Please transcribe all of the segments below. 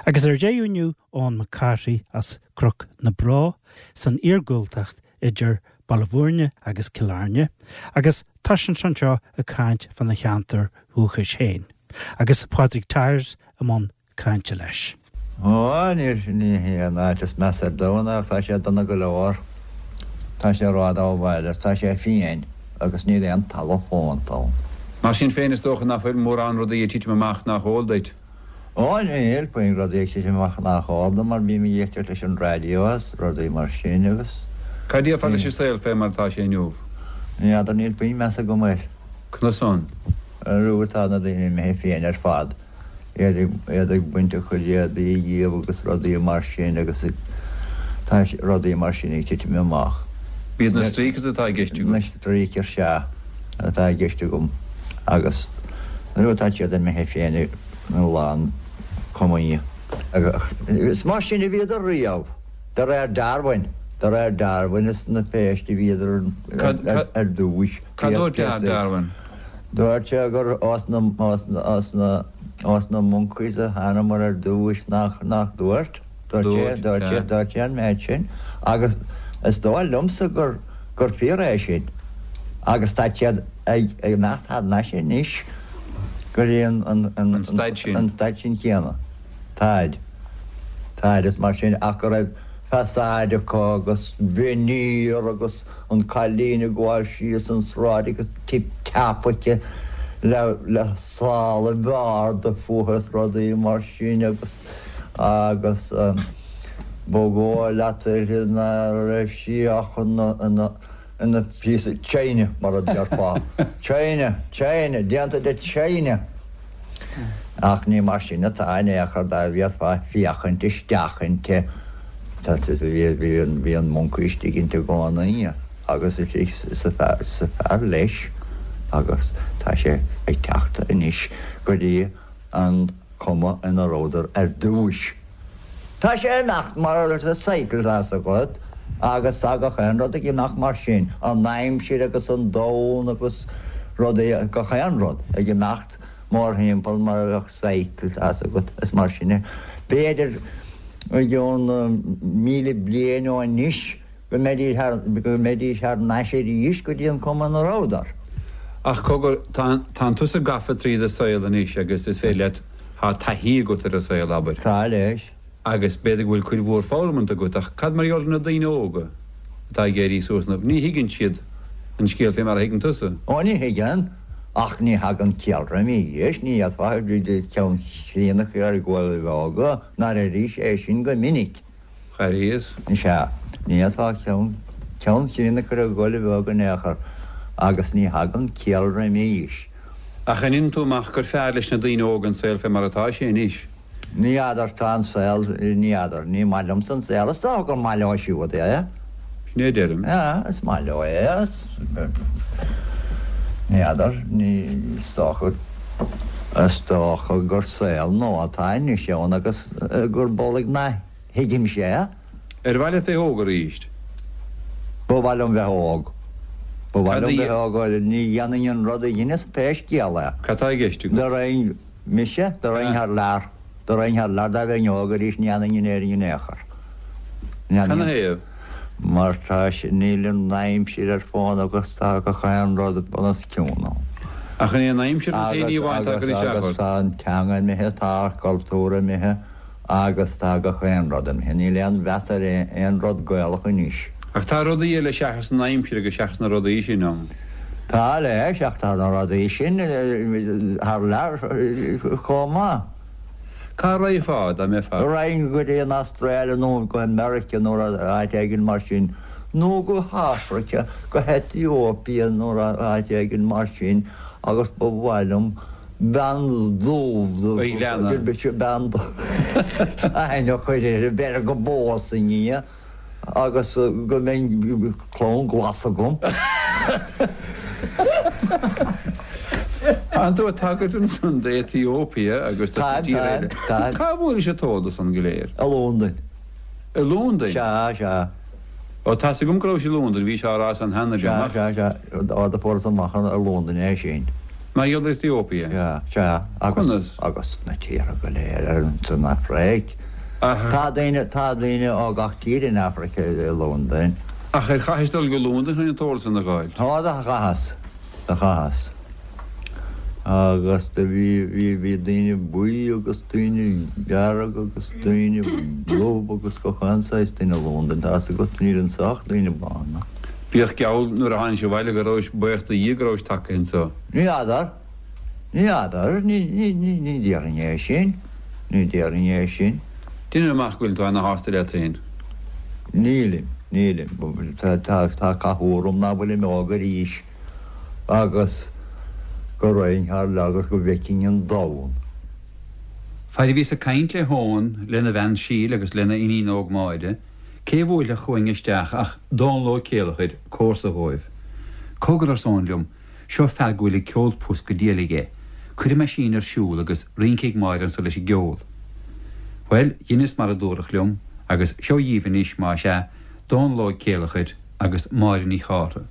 Agus ar deireadh inniu, Eoin Mac Cárthaigh as Cnoc na Bró san iargúltacht idir Baile Bhúirne agus Cill Airne, agus tá sé anseo ag caint fána cheantar dhúchais féin, agus Pádraig Tyers i mbun cainte leis. Ó, níl, ní hé an áit is measa ar domhan ach tá sé dona go leor. Tá sé ródhóbhail agus tá sé fiain agus níl aon talamh fónta ann. Mar sin féin, is dócha nach bhfuil mórán rudaí ag titim amach nach eol duit. Ó, níl puinn rudaí ag titim amach nach eol dom mar bím ag éisteacht leis an raidió agus rudaí mar sin agus. Cad a déarfá leis an saol fé mar atá sé inniu? Ní fheadar, níl puinn meas agam air. Conas san? Arú tá na daoine imithe fiain ar fad, iad ag, iad ag baint a chuid éadaí dhíobh agus rudaí mar sin agus ag, tá rudaí mar sin ag titim amach. B'iad na streakers atá i gceist agat? Na streakers, sea. atá i gceist agam agus nuair atá siad imithe fiain ina lán cumaí. Is mar sin a bhíodar riamh, de réir Darwin, de réir Darwin is na péist a bhíodar ar dtúis. Cad dúirt Darwin? Dúirt sé gur os na, os na, os na, os na monkeys a thánamar ar dtúis nach, nach dúirt? Dúirt sé, dúirt sé, dúirt sé an méid sin agus is dóigh liomsa gur, gur fíor é sin agus tá siad ag imeacht thar n-ais anois go dtí an, an, an, An staid sin. an staid sin chéanna. Táid. Táid is mar sin ach go raibh façade acu agus veneer agus an cailín ag gabháil síos an sráid agus tip tap aici le, le sála arda fúithi is rudaí mar sin agus agus ba dhóigh leat uirthi ná raibh sí ach ina píosa china, mar a déarfá. China, china, déanta de china! Ach ní mar sin atá in aon chor dá bhféadfá féachaint isteach inti. Bhí an moncaí istigh inti i gcónaí agus is a fear leis agus tá sé ag teacht anois go dtí an cuma ina rabhadar ar dtúis. Tá sé ag imeacht mar cycle tá's agat agus tá gach aon rud ag imeacht mar sin, an aimsir agus an domhan agus rudaí, gach aon rud ag imeacht mórthimpeall mar a bheadh cycle tá's agat, is mar sin é. B'fhéidir i gcionn 1,000 bliain ó anois go mbeidís thar n-ais arís go dtí an cuma ina rabhadar. Ach cogar, tánn tusa gafa tríd an saol anois agus is féidir leat, tá taithí agat ar an saol, abair. Tá, leis. Agus b'fhéidir go bhfuil cuid mhór foghlamanta agat, ach cad mar gheall ar na daoine óga atá ag éirí suas inniu? Ní thuigeann siad an scéal fé mar a thuigeann tusa. Ó, ní thuigeann, ach ní thagann ciall roimis, ní fhéadfá ceann chríonna a chur ar ghoil óga, nár airís é sin go minic. Airíos. Sea, ní fhéadfá ceann, ceann chríonna a chur ar ghoil bheag in aon chor, agus ní thagann ciall roimis. Ach an ndéanann tú amach gur fearr leis na daoine óga an saol fé mar atá sé anois? Ní fheadar, tá an saol, ní fheadar, ní maith liomsa an saol, is dócha gur maith leo siúd é. Sin é a deirim. Sea, is maith leo é, is, ní fheadar, ní, is dócha, is dócha gur saol nua atá anois ann agus gurb amhlaidh nach thuigimse é. Ar mhaith leat bheith óg arís? Ba mhaith liom bheith óg. Ba mhaith liom bheith óg, ní dhéanfainn an rud a dheineas pé scéal é. Cad tá i gceist agat? Dá raghainn, mise, dá raghainn thar lear, dá raghainn thar lear dá mbeinn óg arís ní fhanfainn in Éirinn in aon chor. Canathaobh? Mar tá, níl an aimsir ar fónamh agus tá gach aon rud bunoscionn ann. Ach an é an aimsir an t-aon ní amháin atá ag cur isteach ort? Agus tá an teanga imithe, tá ár gcultúr imithe agus tá gach aon rud imithe. Níl aon mheas ar aon rud Gaelach anois. Ach tá rudaí eile seachas an aimsir agus seachas na rudaí sin ann. Tá leis, ach tá na rudaí sin thar lear chomh maith. Cá raghfá dá mbeifeá? Raghainn go dtí an Astráil nó go Meiriceá nó áit éigin mar sin, nó go hAfraice, go hEtióipia nó áit éigin mar sin agus ba mhaith liom bean dubh, bean aithne a chur uirthi, b'fhéidir go bpósfainn í. Agus go mbeidh clann glas agam. Tánn tú ag tagairt ansan d'Ethiopia agus do na tíortha eile. Táim, táim. Cá bhfuairis an t-eolas san go léir? I Londain. I Londain? Sea, sea. Ó, tá's agam go rabhais i Londain, bhís á rá san cheana liom, ach. Sea, sea, sea. Ó, do fuaireas amach i Londain é sin. Mar gheall ar Ethiopia? Sea, sea. Agus, Conas? agus na tíortha go léir ar san Afraic. Ach. Tá daoine, tá daoine ó gach tír in Afraic i Londain. Ach ar chaithis dul go Londain chun an t-eolas san a dh'fháilt? Tá, do chaitheas, do chaitheas. Agus do bhí, bhí, bhí daoine buí agus daoine dearg agus daoine dubh agus gach aon saghas duine i Londain, tá's agat, níl anso ach daoine bána. Bíodh geall nuair a tháinig abhaile go rabhais buíoch do Dhia go rabhais tagtha anso. Ní fheadar, ní fheadar, ní, ní, ní, ní déarfainn é sin, ní déarfainn é sin. Deinim amach go bhfuil tú ana-shásta leat féin. Nílim, nílim. Tá, tá, tá cathú orm ná fuilim óg arís agus go raghainn thar lear agus go bhfeicfinn an domhan. Fad a bhíos ag caint le hEoghan, lena bhean Síle agus lena iníon óg Máire, cé bhuailfeadh chugainn isteach ach Dónall Ó Céileachair, comharsa dhóibh. Cogar, arsa Eoghan liom, seo fear go bhfuil ag ceol pus go diail aige. Cuirfidh mé sín ar siúl agus rinceoidh Máire anso leis an gceol. Bhuel, dheineas mar a dúradh liom agus seo dhíbh anois, más ea, Dónall Ó Céileachair agus Máire Ní Chártha.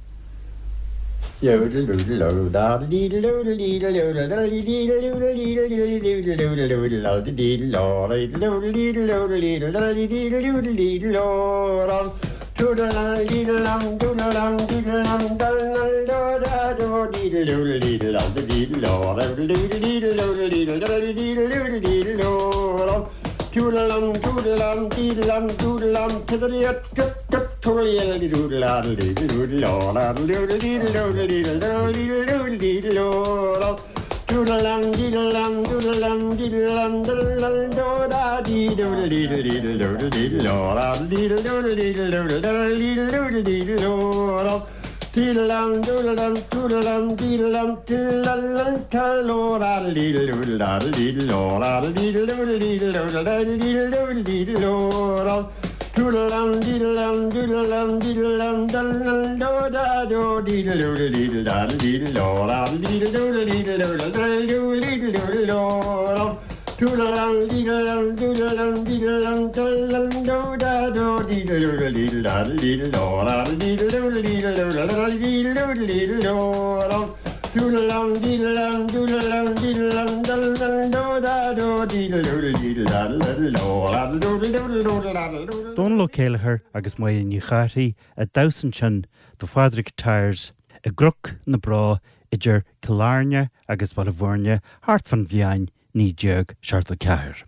Dónall Ó Céileachair agus Máire Ní Chárthaigh ag damhsa ansin do Phádraig Tyers i gCnoc na Bró idir Cill Airne agus Baile Bhuirne thart fán bhliain 1974.